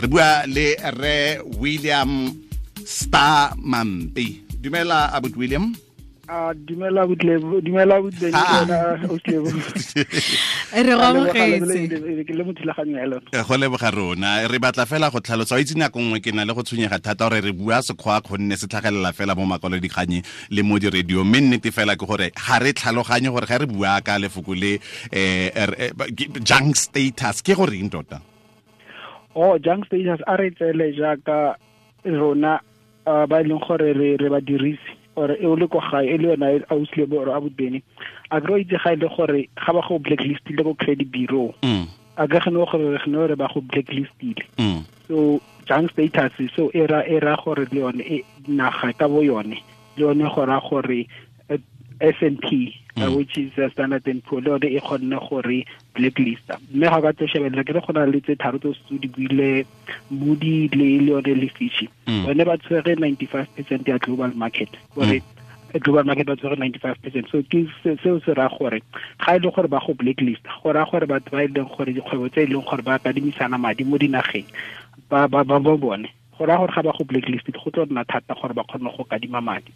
Re bua le re William Star Mampi. Dumela, abut William. A dumela butlebo, dumela butlebo wena Oslebo. Re go amogetse. Ke le mo thulaganyo ya lona. Go leboga rona. Re batla fela go tlhalosa, o itse nako nngwe ke na le go tshwenyega thata gore re bua Sekgowa gonne se tlhagelela fela mo makwalodikganye le mo di-radio, mme nnete fela ke gore ga re tlhaloganye gore ga re bua ka lefoko le junk status ke goreng tota. Oh, junk status a re tsele jaaka rona ba e leng gore re badirisi, or e o le ko gae e le yona Auslebo or abutbene, a kry itse ga e le gore ga ba go blacklistile ko credit bureau, a ka gane gore re gane re ba go blacklistile. So junk status so e ra gore le yone e naga ka bo yone le yone go ra gore S&P, which is Standard and Poor, le yone e kgonne gore blacklista. Mme ga ka tlo shebelela ke re go na le tse tharo tse di buile, Moody le yone le Fitch, bone ba tshwere 95% ya global market, gore global market ba tshwere 95%. So ke seo se ra gore ga e le gore ba go blacklist, go ra gore batho ba e leng gore dikgwebo tse e leng gore ba kadimisana madi mo dinageng ba ba ba bone, go ra gore ga ba go blacklist go tlo nna thata gore ba kgone go kadima madi.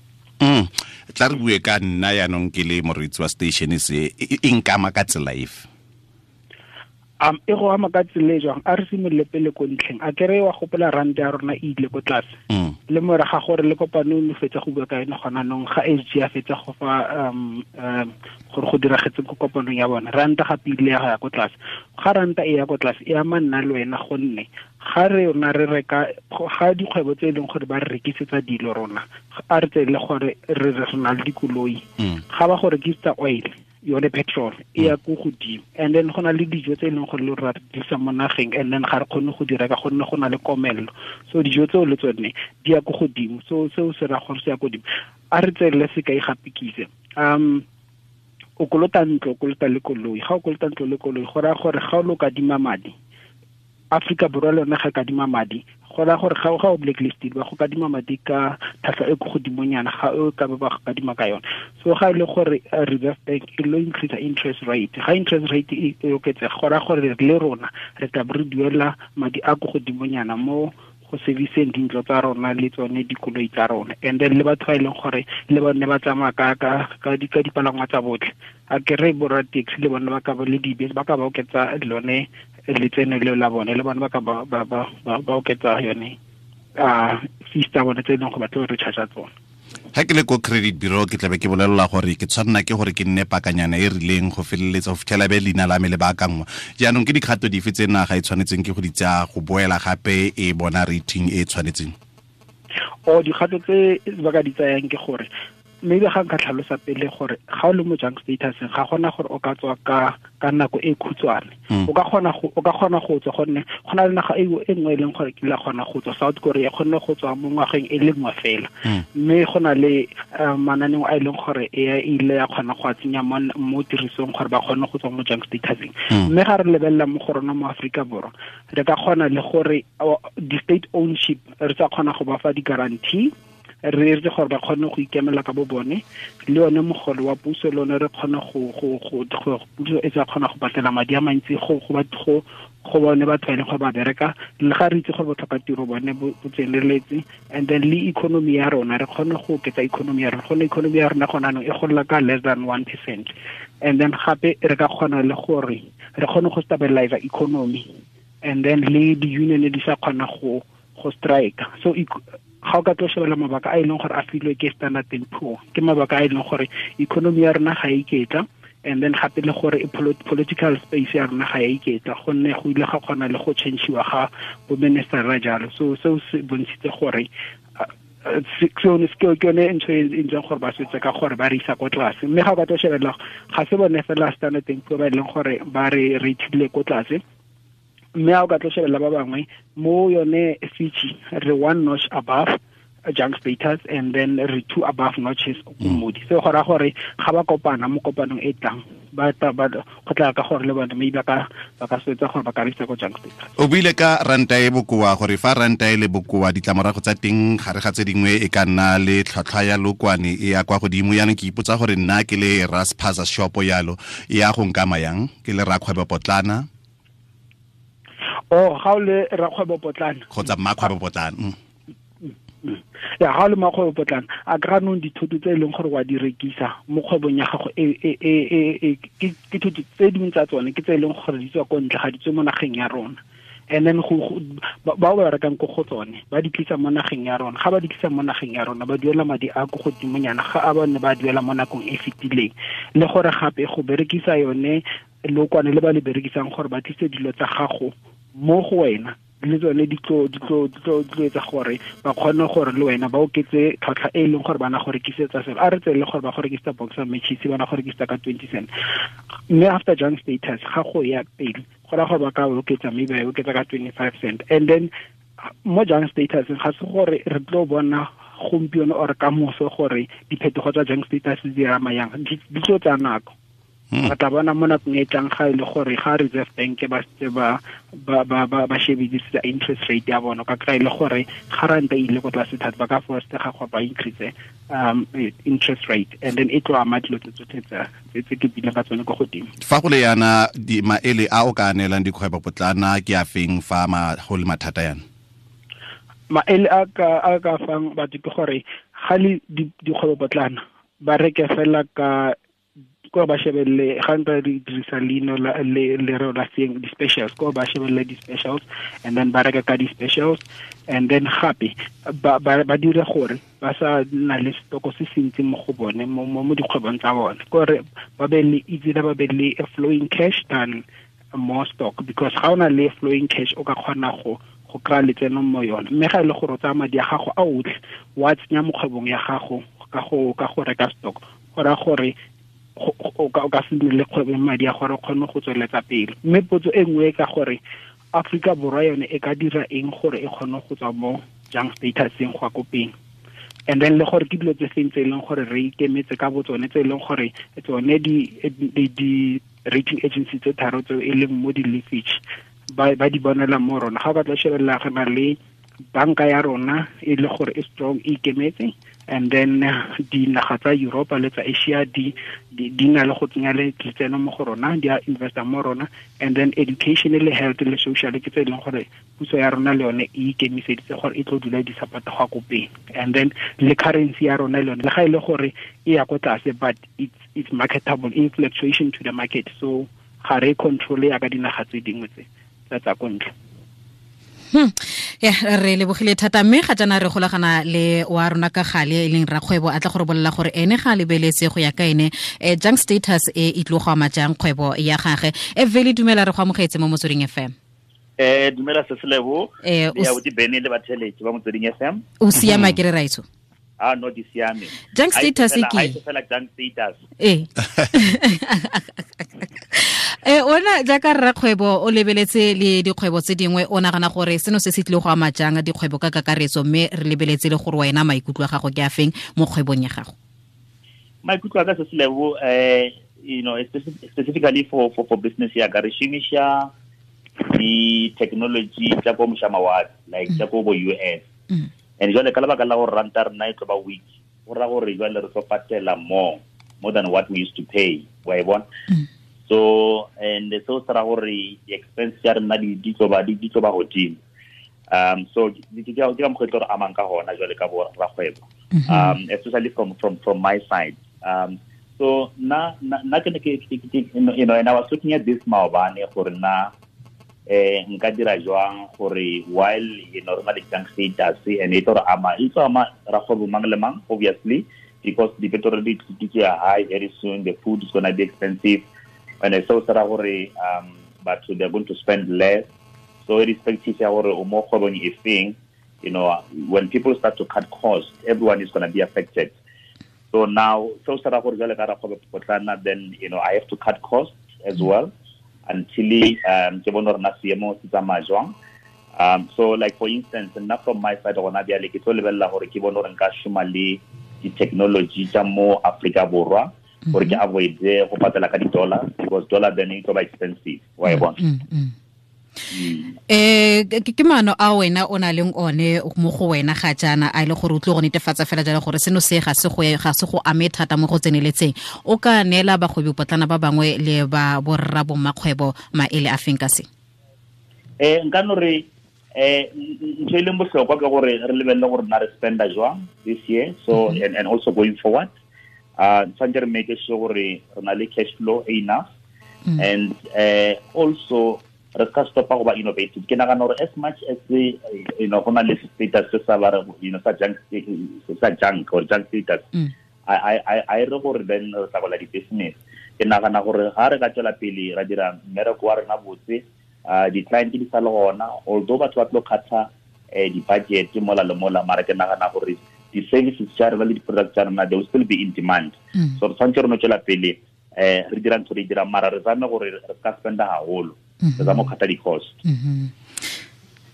Tla re bue ka nna yaanong ke le moreetsi wa station se, e nkama ka tsela efe? E go ama ka tsela e jwang? A re simolole pele ko ntlheng. A kere wa gopola rand ya rona e ile ko tlase, le morago ga gore le kopano e fetsa go bua ka yone gona nong, ga SG a fetsa go fa gore go diragetse ko kopanong ya bona, ranta gape ile ya ko tlase. Ga ranta e ya ko tlase e ama nna le wena, gonne ga re rona re reka ga dikgwebo tse e leng gore ba re rekisetsa dilo rona, a re tsele gore re na le dikoloi, ga ba go rekisetsa oil yone petrol e ya ko godimo, and then go na le dijo tse e leng gore le ra dirisa mo nageng, and then ga re kgone go di reka gonne go na le komello, so dijo tseo le tsone di ya ko godimo. So seo se ra gore se ya ko godimo. A re tseele sekai gape kise, o kolota ntlo, o kolota le koloi. Ga o kolota ntlo le koloi, go raya gore ga o lo kadima madi, Afrika Borwa le yone ga kadima madi, go raya gore ga o blacklisted ba go kadima madi ka tlhwatlhwa e ko godimonyana ga o ka ba go kadima ka yone. So ga e le gore Reserve Bank e lo increase interest rate, ga interest rate e oketsega, go raya gore le rona re tla re duela madi a ko godimonyana mo go serviceng dintlo tsa rona le tsone dikoloi tsa rona. And then le batho ba e leng gore le bone ba tsamaya ka dipalangwa tsa botlhe, a kere borra taxi le bone ba ka ba le dibese ba ka ba oketsa lone letseno leo la bone, le bone ba ka ba oketsa yone fees tsa bone tse e leng go batla re charge tsone. Ha ke le ko credit bureau ke tlabe ke bolelela gore ke tshwanna ke gore ke nne pakanyana e rileng go feleletsa go fitlhela be leina la me le baakangwa. Jaanong ke dikgato dife tse naga e tshwanetseng ke go di tsaya go boela gape e bona rating e tshwanetseng? O dikgato tse ba ka di tsayang ke gore maybe ga nka tlhalosa pele gore ga o le mo junk status ga gona gore o ka tswa ka nako e khutshwane. O ka kgona go tswa gonne go na le naga e nngwe e leng gore ke la kgona go tswa, South Korea kgonne go tswa mo ngwageng e le nngwe fela, mme go na le mananeo a e leng gore e ile ya kgona go a tsenya mo tirisong gore ba kgone go tswa mo junk statuseng. Mme ga re lebelela mo go rona mo Aforika Borwa, re ka kgona le gore di-state ownership re tsa kgona go ba fa di-guarantee, re re gore ba kgone go ikemela ka bo bone, le yone mogolo wa puso le one re kgone go puso e tsa kgona go patela madi a mantsi go bone batho ba e leng gore ba bereka, le ga re itse gore botlhoka tiro bone bo tseneletse. And then le economy ya rona re kgone go oketsa economy ya rona, gonne economy ya rona gona anong e gola ka less than 1%. And then gape re ka kgona le gore re kgone go stabilize economy, and then le di-union di sa kgona go strike. So ga o ka tlo shebela mabaka a e leng gore a filwe ke Standard and Poor, ke mabaka a e leng gore economy ya rona ga e iketla, and then gape le gore political space ya rona ga e iketla, gonne go ile ga kgona le go change-iwa ga bo minister-ra jalo. So seo se bontshitse gore sone ke yone ntho e ntseng gore ba swetse ka gore ba re isa ko tlase. Mme ga o ka tlo shebelela ga se bone fela Standard and Poor ba e leng gore ba re rateile ko tlase, mme ga o ka tlo shebelela ba bangwe mo yone Fitch re one notch above junk status, and then re two above notches ko Moody. So go raya gore ga ba kopana mo kopanong e tlang ba go tla ka gore le bone maybe ba ka swetsa gore ba ka reisa ko junk status. O buile ka ranta e bokoa, gore fa ranta e le bokoa ditlamorago tsa teng gare ga tse dingwe e ka nna le tlhwatlhwa ya lokwane e ya kwa godimo. Yaanong ke ipotsa gore nna ke le Raspaza shop yalo e ya go nkama yang ke le rakgwebo potlana? Oh, ga o le rakgwebo potlana kgotsa mmakgwebo potlana. Ya, ga o le mmakgwebo potlana, a kry nong dithoto tse e leng gore wa di rekisa mo kgwebong ya gago, ke dithoto tse dingwe tsa tsone ke tse e leng gore di tswa ko ntle, ga di tswe mo nageng ya rona. And then bao ba rekang ko go tsone ba di tlisa mo nageng ya rona. Ga ba di tlisa mo nageng ya rona, ba duela madi a ko godimonyana ga a bone ba duela mo nakong e fetileng. Le gore gape go berekisa yone lokwane le ba le berekisang gore ba tlise dilo tsa gago mo go wena, le tsone di tlo etsa gore ba kgone gore le wena ba oketse tlhwatlhwa e leng gore bana go rekisetsa selo. A re tsele gore ba go rekisetsa box of matches, bana go rekisetsa ka 20 cent, mme after junk status ga go ya pele go ra gore ba ka oketsa, maybe ba oketsa ka 25 cent. And then mo junk status ga se gore re tlo bona gompieno or ka moso gore diphetogo tsa junk status di ama yang, di tlo tsaya nako. Re tla bona mo nakong e tlang ga e le gore ga Reserve Bank ba setse ba shebedisitse interest rate ya bona, ka kry e le gore ga ranta e ile ko tlase thata, ba ka forcega gore ba increase interest rate, and then e tlo ama dilo tse tsotlhe tse ke bileng ka tsone ko godimo. Fa go le yana, maele a o ka neelang dikgwebo potlana ke a feng fa go le mathata yana? Maele a ka fang batho ke gore ga le dikgwebo potlana ba reke fela ka ko ba shebelle, ga nka di dirisa leino le lereo la seng di-specials, ko ba shebelle di-specials and then ba reka ka di-specials. And then gape ba dire gore ba sa nna le stoko se se ntsi mo go bone mo dikgwebong tsa bone, kore ba be le easy, ba be le flowing cash than more stock, because ga o na le flowing cash o ka kgona go kry-a letseno mo yone. Mme ga e le gore o tsaya madi a gago a otlhe wa tsenya mo kgwebong ya gago ka go reka stock, go raya gore o ka se nne le kgwebo madi a gore o kgone go tsweletsa pele. Mme potso e nngwe ka gore Afrika Borwa yone e ka dira eng gore e kgone go tswa mo junk statuseng go ya ko pele, and then le gore ke dilo tse feng tse e leng gore re ikemetse ka botsone, tse e leng gore tsone di rating agency tse tharo tseo e leng mo di-leafage ba di bonela mo rona. Ga o ka tla shebelela re na le banka ya rona e le gore e strong, e ikemetse, and then dinaga tsa Europa le tsa Asia di na le go tsenya letseno mo go rona, di a investa mo rona. And then education le health le social ke tse e leng gore puso ya rona le yone e ikemiseditse gore e tlo dula di support go ko pele. And then le currency ya rona le yone le ga e le gore e ya ko tlase, but it's marketable in fluctuation to the market, so ga re control ya ka dinaga tse dingwe tse tsa ko ntle. Ya, re lebogile thata, mme ga jaana re golagana le wa rona ka gale e leng rakgwebo a tla go re bolela gore ene ga lebeletse go ya ka ene junk status e e tlo go ama jang kgwebo ya gagwe. Vele, dumela, re go amogetse mo Motsweding FM. Dumela Seselebo, ya bodi Bene le batheletsi ba Motsweding FM. O siama ke re raitso? Ah, no, di siame. Junk status ke fela junk status. Ona jaaka rrakgwebo o lebeletse le dikgwebo tse dingwe, o nagana gore seno se se tlile go ama jang dikgwebo ka kakaretso, mme re lebeletse le gore wena maikutlo a gago ke a feng mo kgwebong ya gago? Maikutlo a ka se selebo, you know, specifically for business ya ka, re šomiša di-technology tsa ko mošamawatle, like tsa ko bo US. And jwale ka lebaka la gore ranta rena e tlo ba weak, go raya gore jwale re tlo patela more than what we used to pay, wa e bona? So and so se ra gore di-expense ya rena di tlo ba godimo. So ke ka mokgwa e tlo re amang ka gona jwale ka bo rakgwebo, especially from my side. So na ke ne ke you know, and I was looking at this maobane gore na nka dira jwang gore while you know re na le junk status and e tlo re ama, e tlo ama rakgwebo mang le mang obviously, because the petrol di tlo high very soon, the food is going to be expensive. And so se ra gore batho they are going to spend less. So irrespective ya gore o mo kgwebong e feng, you know, when people start to cut costs, everyone is going to be affected. So now so se ra gore jwale ka rakgwebo potlana, then you know I have to cut costs as well until ke bone gore na seemo se tsamaya jwang. So like for instance, nna from my side gona bjale ke tlo lebelela gore ke bone gore nka šoma le di-technology tsa mo Afrika Borwa gore ke avoid go patela ka di-dollar, because dollar then e tlo ba expensive, wa e bona. Ke maano a wena o na leng one mo go wena ga jaana a ile gore o tlo go netefatsa fela jalo gore seno se ga se go ame thata mo go tseneletseng, o ka neela bagwebi potlana ba bangwe le ba borra bommakgwebo maele a feng ka se? Nka no re ntho e leng bohlokwa ke gore re lebelele gore na re spenda jwang this year, so and also going forward. Tshwanetse re make sure gore re na le cash flow enough, and also re ska stopa go ba innovative. Ke nagana gore as much as the, you know, go na le status se sa ba, you know, sa junk or junk status, I re gore then re tla gola di-business. Ke nagana gore ga re ka tswela pele ra dira mmereko wa rena botse, di-client di sa le gona, although batho ba tlo kgatha di-budget mola le mola, mara ke nagana gore di-services tsa rena le di-products tsa rena, they will still be in demand. So re tshwanetse re no tswela pele re dira ntho re dirang, mara re zame gore re ka spenda haholo, re zame go kgatha di-cost.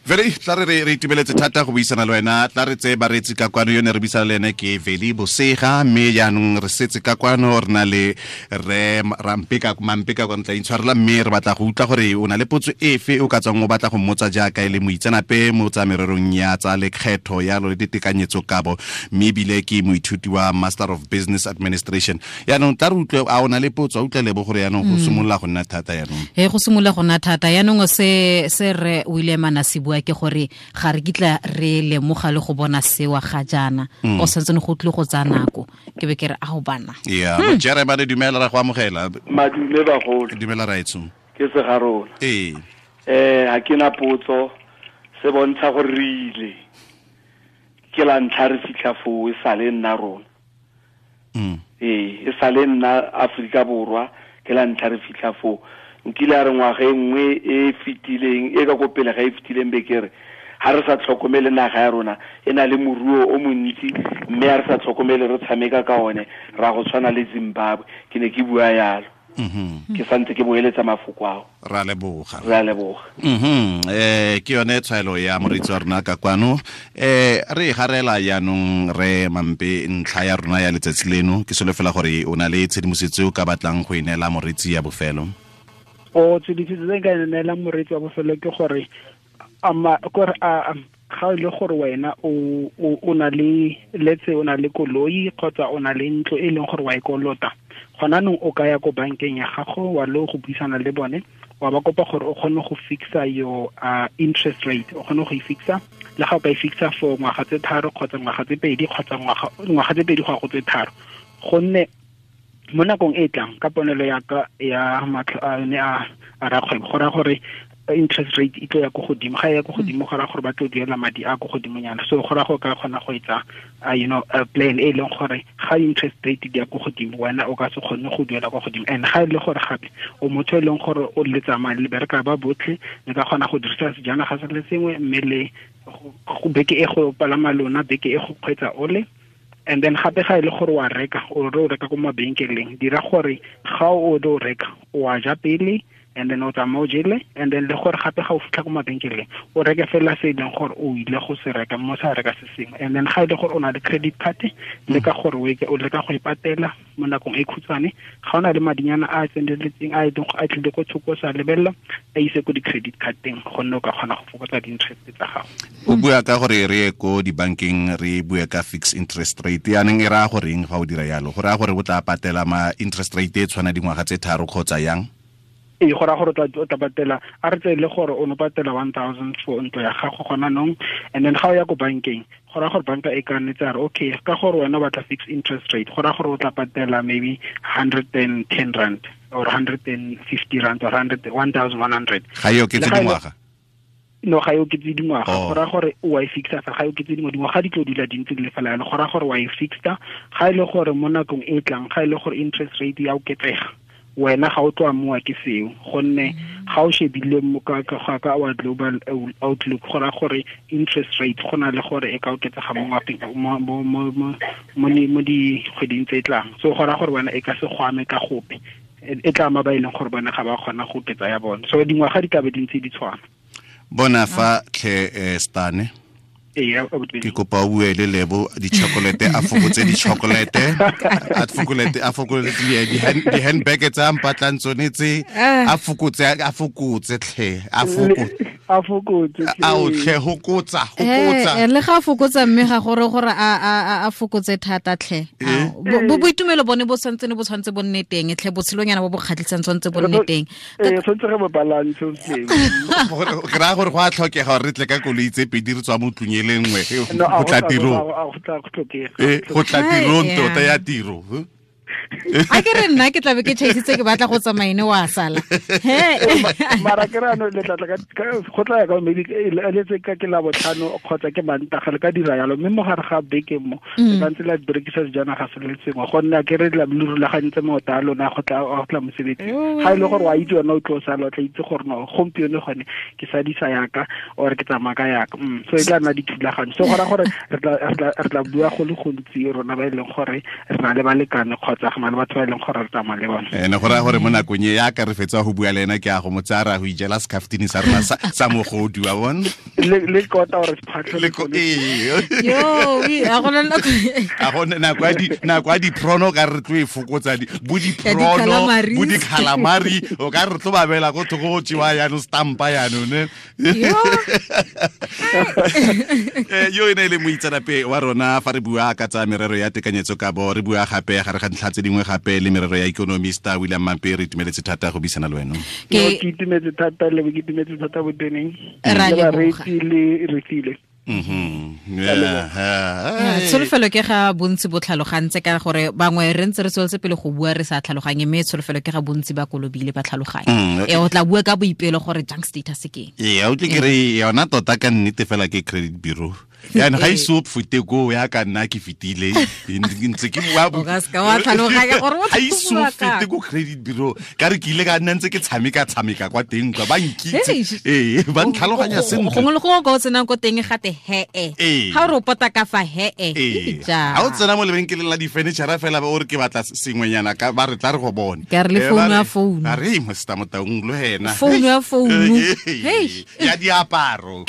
Veli, tla re itumeletse thata go buisana le wena. Tla re tseye bareetsi ka kwano, yone re buisana le ene ke Veli Bosega, mme jaanong re setse ka kwano re na le re Rampeka Mampeka kwa ntla intshwarela, mme re batla go utlwa gore o na le potso efe o ka tswang o batla go mmotsa jaaka e le moitseanape mo tsa mererong ya tsa lekgetho yalo le ditekanyetso kabo, mme ebile ke moithuti wa Master of Business Administration. Yaanong tla re utlwe a o na le potso, a utlwe lebo gore yaanong go simolola go nna thata yaanong. Go simolola go nna thata yaanong se re William a se bua ke gore ga re kitla re lemoga le go bona sewa ga jaana, o santse go tlile go tsaya nako. Ke be ke re a go bana. Yeah, Jeremy, dumela, ra go amogela. Madume bagolo. Dumela raetso. Ke se ga rona. Ee. Ha ke na potso, se bontsha gore re ile. Ke la ntlha re fitlha foo, e sale nna rona. E sale nna Afrika Borwa, ke la ntlha re fitlha foo. Nkile a re ngwaga e nngwe e fetileng, e ka ko pele ga e fetileng be ke re ha re sa tlhokomele naga ya rona e na le moruo o montsi, mme ha re sa tlhokomele re tshameka ka one ra go tshwana le Zimbabwe. Ke ne ke bua yalo. Ke santse ke boeletsa mafoko ao. Ra leboga. Ra leboga. Ke yone tshwaelo ya moreetsi wa rona ka kwano. Re garela jaanong re Mampe ntlha ya rona ya letsatsi leno. Ke solofela gore o na le tshedimosetso o ka batlang go e neela moreetsi ya bofelo. O tshedimosetso tse nka e neelang moreetsi wa bofelo ke gore ga e le gore wena o na le, let's say o na le koloi kgotsa o na le ntlo e leng gore wa e kolota, gona nong o ka ya ko bankeng ya gago wa lo go buisana le bone, wa ba kopa gore o kgone go fixa your interest rate, o kgone go e fixa. Le ga o ka e fixa for ngwaga tse 3 kgotsa ngwaga tse 2 kgotsa ngwaga tse 2 go ya go tse 3, gonne mo nakong e tlang ka ponelo ya ka ya matlho a ne a rakgwebo, go raya gore interest rate e tlo ya ko godimo. Ga e ya ko godimo go raya gore ba tlo duela madi a ko godimonyana. So go raya gore ka kgona go etsa you know, a plan e leng gore ga interest rate di ya ko godimo, wena o ka se kgone go duela kwa godimo. And ga e le gore gape o motho e leng gore o le tsamaya le bereka ba botlhe, le ka kgona go dirisa sejanaga se le sengwe, mme le go beke e go palama lona, beke e go kgweetsa ole. And then gape ga e le gore wa reka, o re o reka ko mabenkeleng, dira gore ga o do reka o a ja pele, and then o tsamaya o jele, and then le gore gape ga o fitlha ko mabenkeleng o reke fela se e leng gore o ile go se reka, mo sa reka se sengwe. And then ga e le gore o na le credit card, leka gore o leka go e patela mo nakong e khutshwane. Ga o na le madinyana a tseneletseng a e leng a tlile ko thoko sa lebelela, a ise ko di-credit card-teng, gonne o ka kgona go fokotsa di-interest tsa gago. O bua ka gore re ye ko dibankeng re bue ka fixed interest rate, yaanong e raya goreng fa o dira yalo? Go raya gore o tla patela ma interest rate e tshwana dingwaga tse 3 kgotsa yang? Ee, go raya gore o tla patela, a re tseye le gore o no patela 1000 for ntlo ya gago gona nong, and then ga o ya ko bankeng, go raya gore banka e ka nnetse a re okay, ka gore wena o batla fixed interest rate, go raya gore o tla patela maybe 110 rand or 150 rand or 1100. Ga e oketse dingwaga? No, ga e oketse dingwaga. Go raya gore o wa e fixa fa, ga e oketse dingwaga di tlo dula di ntse di le fela yalo. Go raya gore wa e fixa, ga e le gore mo nakong e tlang, ga e le gore interest rate ya oketsega, wena ga o tlo amoa ke seo, gonne ga o shebile mo ka our global outlook, go raya gore interest rate go na le gore e ka oketsega mo mo dikgweding tse tlang. So go raya gore wena e ka se go ame ka gope, e tla ama ba e leng gore bone ga ba kgona go oketsa ya bone. So dingwaga di ka be di ntse di tshwana. Bona fa tlhe Stane. Ke kopa o bue le Lebo di-chocolate, a fokotse di-chocolate, a fokotse di-handbag tsa mpatlang tsone tse, a fokotse tlhe, a A fokotse. A o tlhe hokotsa hokotsa. Le ga fokotsa mme ga gore gore a fokotse thata tlhe. Bo boitumelo bone bo santse ne bo tshwantse bo nne teng tlhe botshelonyana bo bo kgatlhisang tshwantse bo nne teng. Tshwantse re bo balance tlhe. Ke ra gore go a tlhokega gore re tle ka koloi tse pedi re tswa mo tlung e le nngwe go tla tirong. Go tla tirong tota ya tiro. A ke re nna ke tlabe ke chaisitse ke batla go tsamaine wa sala. He mara ke ra no le tla ka go tla ya ka maybe le tse ka ke la botlhano kgotsa ke Mantaga le ka dira yalo mme mo gare ga beke mo le ntse la berekisa sejanaga se le sengwe gonne ke re la le rulagantse maoto a lona go tla mosebetsi ga ile gore wa itse wena o tlo sala o tla itse gore no gompieno gone ke sadisa yaka or ke tsamaya ka yaka so e tla nna dithulaganyo so gora gore re tla bua go le gontsi rona ba e leng gore re na le balekane kgotsa go na le batho ba e leng gore re tsamaya le bone. Ene go raya gore mo nakong e ya ka re fetsa go bua le ena ke a go mo tsaya ra go ijela secaftini sa rona sa mogodu wa bona le kota gore sephatlho le yo a go nako nako ya diprono ka re tlo e fokotsa bo diprono bo di-calamari o ka re tlo ba beela ko thoko go tsewa yaanong stampa yaanong ne yo e ne e le moitseanape wa rona fa re bua ka tsa merero ya tekanyetso kabo re bua gape gare ga ntlha tse dingwe gape le merero ya economista William Mampe re itumeletse thata go buisana le wena. Ke itumetse thata le ke itumetse thata boteneng le bareetsi le Refilwe. Tsholofelo ke ga bontsi bo tlhalogantse ka gore bangwe re ntse re tsweletse pele go bua re sa tlhaloganye mme tsholofelo ke ga bontsi ba kolobile ba tlhaloganye. O tla bua ka boipelo gore junk status ke eng. Ee, o tle ke re yona tota ka nnete fela ke credit bureau. Yaanong ga ise o fete koo ya ka nna ke fetile ntse ke bua o ka seka wa tlhaloganya gore ga ise o fete ko credit bureau ka re ke ile ka nna ntse ke tshameka kwa teng kwa ba nkitse ee ba ntlhaloganya sentle gongwe le gongwe ka o tsenang ko teng gate he-e ga o re o pota ka fa he-e ga o tsena mo lebenkeleng la di-furniture fela o re ke batla sengwenyana ka ba re tla re go bone ka re le founu ya founu a re mosta Motaung le wena founu ya founu ya diaparo.